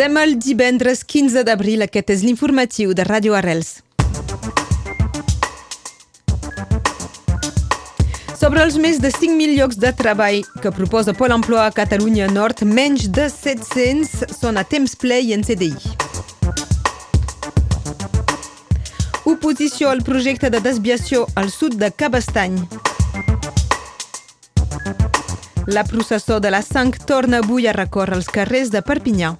Som el divendres 15 d'abril, aquest és l'informatiu de Ràdio Arrels. Sobre els més de 5.000 llocs de treball que proposa Pol Emploi a Catalunya Nord, menys de 700 són a temps ple i en CDI. Oposició al projecte de desviació al sud de Cabestany. La processó de la sang torna avui a recórrer els carrers de Perpinyà.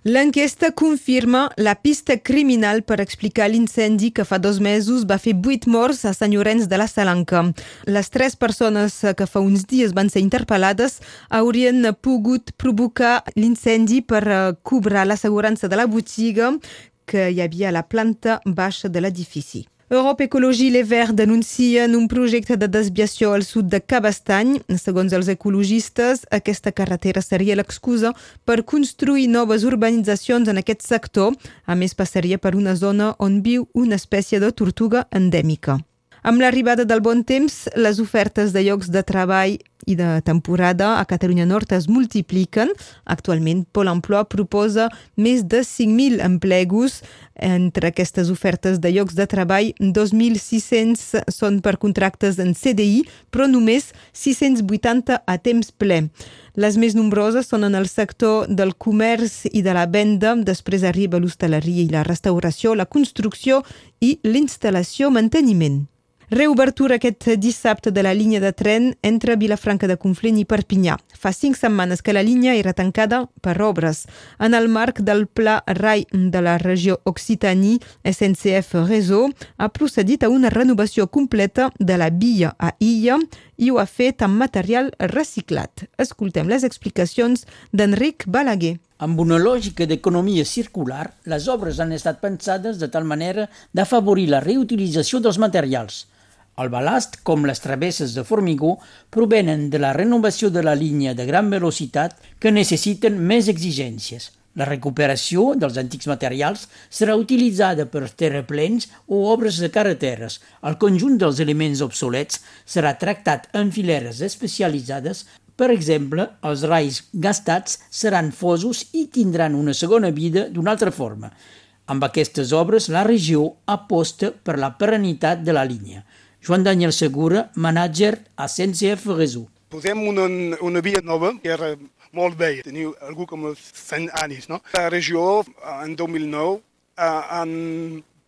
L'enquesta confirma la pista criminal per explicar l'incendi que fa 2 mesos va fer 8 morts a Sant Llorenç de la Salanca. Les 3 persones que fa uns dies van ser interpel·lades haurien pogut provocar l'incendi per cobrar l'assegurança de la botiga que hi havia a la planta baixa de l'edifici. Europe Ecologie Les Verts denuncien un projecte de desviació al sud de Cabestany. Segons els ecologistes, aquesta carretera seria l'excusa per construir noves urbanitzacions en aquest sector. A més, passaria per una zona on viu una espècie de tortuga endèmica. Amb l'arribada del bon temps, les ofertes de llocs de treball i de temporada a Catalunya Nord es multipliquen. Actualment, Pol Emploi proposa més de 5.000 emplegos. Entre aquestes ofertes de llocs de treball, 2.600 són per contractes en CDI, però només 680 a temps ple. Les més nombroses són en el sector del comerç i de la venda, després arriba l'hostaleria i la restauració, la construcció i l'instal·lació-manteniment. Reobertura aquest dissabte de la línia de tren entre Vilafranca de Conflent i Perpinyà. Fa 5 setmanes que la línia era tancada per obres. En el marc del Pla RAI de la regió Occitanie, SNCF Réseau ha procedit a una renovació completa de la via a Illa i ho ha fet amb material reciclat. Escoltem les explicacions d'Enric Balaguer. Amb una lògica d'economia circular, les obres han estat pensades de tal manera d'afavorir la reutilització dels materials. El balast, com les travesses de formigó, provenen de la renovació de la línia de gran velocitat que necessiten més exigències. La recuperació dels antics materials serà utilitzada per terraplens o obres de carreteres. El conjunt dels elements obsolets serà tractat en fileres especialitzades. Per exemple, els rais gastats seran fosos i tindran una segona vida d'una altra forma. Amb aquestes obres, la regió aposta per la perennitat de la línia. Joan Daniel Segura, manager a SNCF Réseau. Posem una via nova que era molt vella, tenia algú com 100 anys. No? La regió, en 2009, han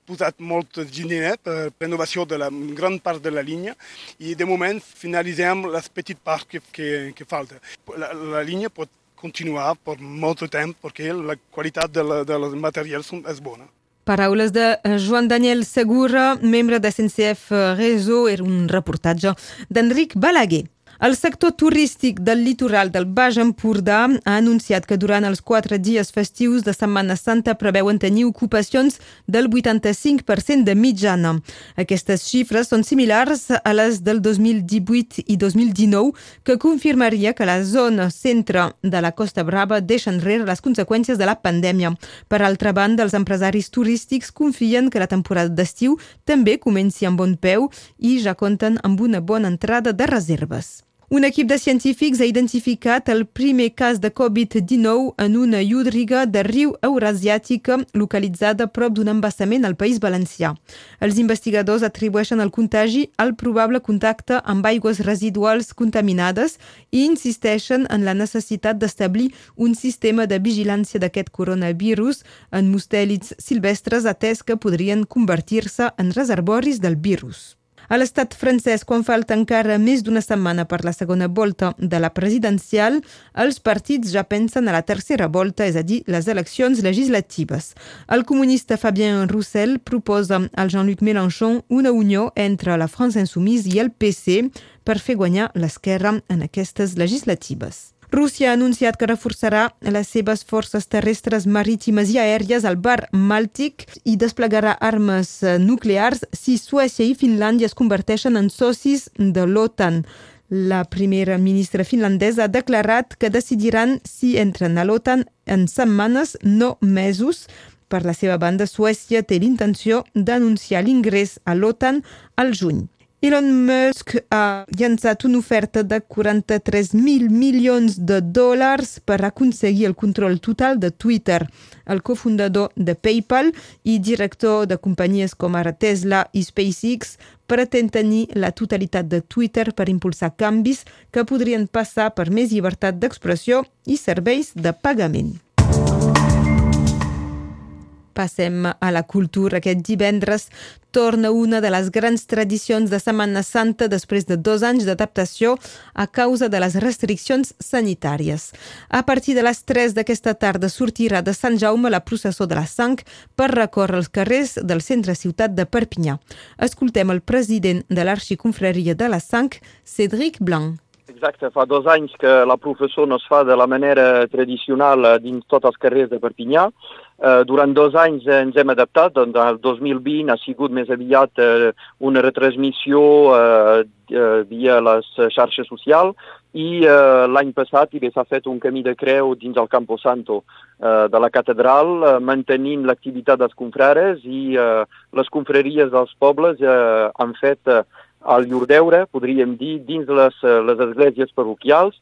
posat molt diner per renovació de la gran part de la línia i de moment finalitzem les petites parts que falta. La línia pot continuar per molt temps perquè la qualitat dels materials és bona. Paraules de Joan Daniel Segura, membre de SNCF Réseau, era un reportatge d'Enric Balaguer. El sector turístic del litoral del Baix Empordà ha anunciat que durant els 4 dies festius de Setmana Santa preveuen tenir ocupacions del 85% de mitjana. Aquestes xifres són similars a les del 2018 i 2019, que confirmaria que la zona centre de la Costa Brava deixa enrere les conseqüències de la pandèmia. Per altra banda, els empresaris turístics confien que la temporada d'estiu també comenci amb bon peu i ja compten amb una bona entrada de reserves. Un equip de científics ha identificat el primer cas de Covid-19 en una llúdriga de riu eurasiàtica localitzada prop d'un embassament al País Valencià. Els investigadors atribueixen el contagi al probable contacte amb aigües residuals contaminades i insisteixen en la necessitat d'establir un sistema de vigilància d'aquest coronavirus en mustèlids silvestres, atès que podrien convertir-se en reservoris del virus. A l'estat francès, quan falta encara més d'una setmana per la segona volta de la presidencial, els partits ja pensen a la tercera volta, és a dir, les eleccions legislatives. El comunista Fabien Roussel proposa al Jean-Luc Mélenchon una unió entre la France Insoumise i el PC per fer guanyar l'esquerra en aquestes legislatives. Rússia ha anunciat que reforçarà les seves forces terrestres, marítimes i aèries al Mar Bàltic i desplegarà armes nuclears si Suècia i Finlàndia es converteixen en socis de l'OTAN. La primera ministra finlandesa ha declarat que decidiran si entren a l'OTAN en setmanes, no mesos. Per la seva banda, Suècia té l'intenció d'anunciar l'ingrés a l'OTAN al juny. Elon Musk ha llançat una oferta de 43.000 milions de dòlars per aconseguir el control total de Twitter. El cofundador de PayPal i director de companyies com ara Tesla i SpaceX pretén tenir la totalitat de Twitter per impulsar canvis que podrien passar per més llibertat d'expressió i serveis de pagament. Passem a la cultura. Aquest divendres torna una de les grans tradicions de Setmana Santa després de 2 anys d'adaptació a causa de les restriccions sanitàries. A partir de les 3 d'aquesta tarda sortirà de Sant Jaume la processó de la Sang per recórrer els carrers del centre ciutat de Perpinyà. Escoltem el president de l'Arxiconfraria de la Sang, Cédric Blanc. Exacte, fa 2 anys que la processó no es fa de la manera tradicional dins tots els carrers de Perpinyà. Durant 2 anys ens hem adaptat, doncs el 2020 ha sigut més aviat una retransmissió via les xarxes socials i l'any passat s'ha fet un camí de creu dins el Campo Santo de la catedral, mantenint l'activitat dels confrares i les confraries dels pobles han fet el llur deure, podríem dir, dins les esglésies parroquials,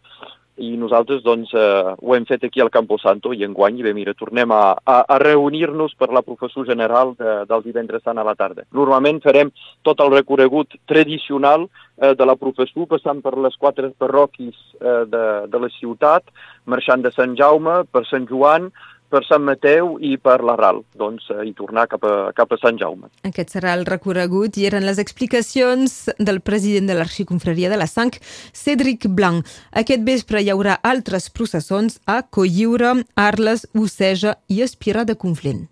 i nosaltres doncs ho hem fet aquí al Campo Santo i enguany tornem a reunir-nos per la professó general del divendres sant a la tarda. Normalment farem tot el recorregut tradicional de la professó, passant per les 4 parròquies de la ciutat, marxant de Sant Jaume, per Sant Joan, per Sant Mateu i per la Ral, i tornar cap a Sant Jaume. Aquest serà el recorregut i eren les explicacions del president de l'Arxiconfraria de la Sang, Cédric Blanc. Aquest vespre hi haurà altres processons a Cotlliure, Arles, Oceja i Espira de Conflent.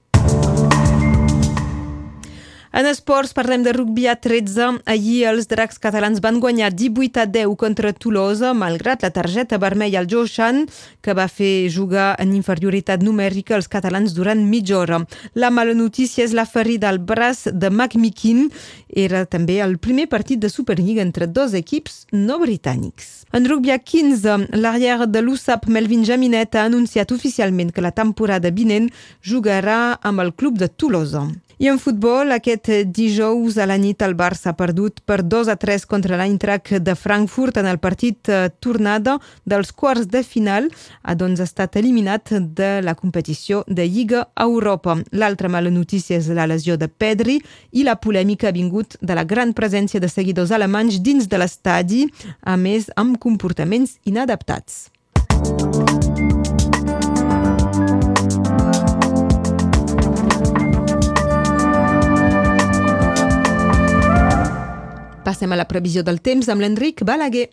En esports parlem de rugby a 13. Ahir els dracs catalans van guanyar 18-10 contra Tolosa, malgrat la targeta vermella al Joshan, que va fer jugar en inferioritat numèrica els catalans durant mitja hora. La mala notícia és la ferida al braç de McMikin. Era també el primer partit de Superliga entre 2 equips no britànics. En rugby a 15, l'arrière de l'USAP, Melvin Jaminet, ha anunciat oficialment que la temporada vinent jugarà amb el club de Tolosa. I en futbol, aquest dijous a la nit el Barça ha perdut per 2-3 contra l'Eintracht de Frankfurt en el partit tornada dels quarts de final, ha estat eliminat de la competició de Lliga Europa. L'altra mala notícia és la lesió de Pedri i la polèmica ha vingut de la gran presència de seguidors alemanys dins de l'estadi, a més amb comportaments inadaptats. Passem a la previsió del temps amb l'Enric Balaguer.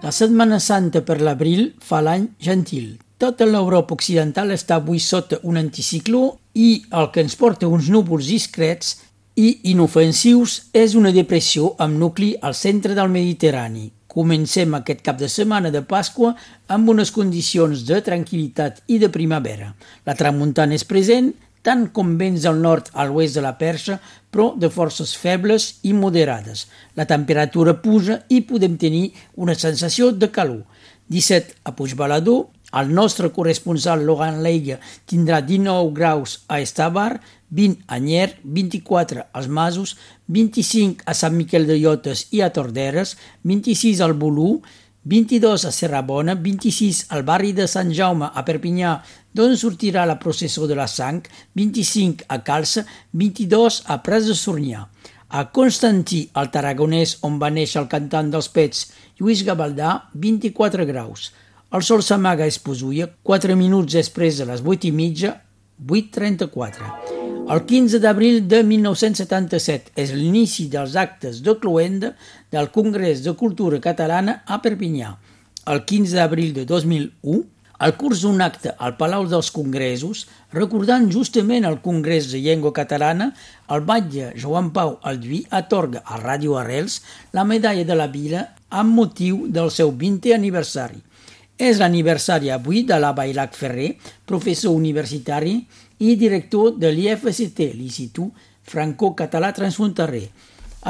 La Setmana Santa per l'abril fa l'any gentil. Tota l'Europa occidental està avui sota un anticicló i el que ens porta uns núvols discrets i inofensius és una depressió amb nucli al centre del Mediterrani. Comencem aquest cap de setmana de Pasqua amb unes condicions de tranquil·litat i de primavera. La tramuntana és present, tant com vents del nord a l'oest de la Perxa, però de forces febles i moderades. La temperatura puja i podem tenir una sensació de calor. 17 a Puigbalador, el nostre corresponsal Laurent Leiga tindrà 19 graus a Estavar, 20 a Nyer, 24 als Masos, 25 a Sant Miquel de Llotes i a Torderes, 26 al Bolú, 22 a Serrabona, 26 al barri de Sant Jaume a Perpinyà, d'on sortirà la processó de la Sang, 25 a Calça, 22 a Prats de Sornià. A Constantí, al Tarragonès, on va néixer el cantant dels Pets, Lluís Gavaldà, 24 graus. El sol s'amaga a Esposulla, 4 minuts després de les 8:30, 8:34. El 15 d'abril de 1977 és l'inici dels actes de cloenda del Congrés de Cultura Catalana a Perpinyà. El 15 d'abril de 2001, al curs d'un acte al Palau dels Congressos, recordant justament el Congrés de Llengua Catalana, el batlle Joan Pau Alduí atorga a Ràdio Arrels la medalla de la Vila amb motiu del seu 20è aniversari. És l'aniversari avui de la Bailac Ferrer, professor universitari i director de l'IFCT, l'Institut Franco-Català Transfronterer.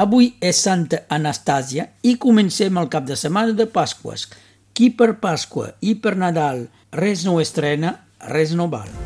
Avui és Santa Anastàsia i comencem el cap de setmana de Pasques. Qui per Pasqua i per Nadal res no estrena, res no val.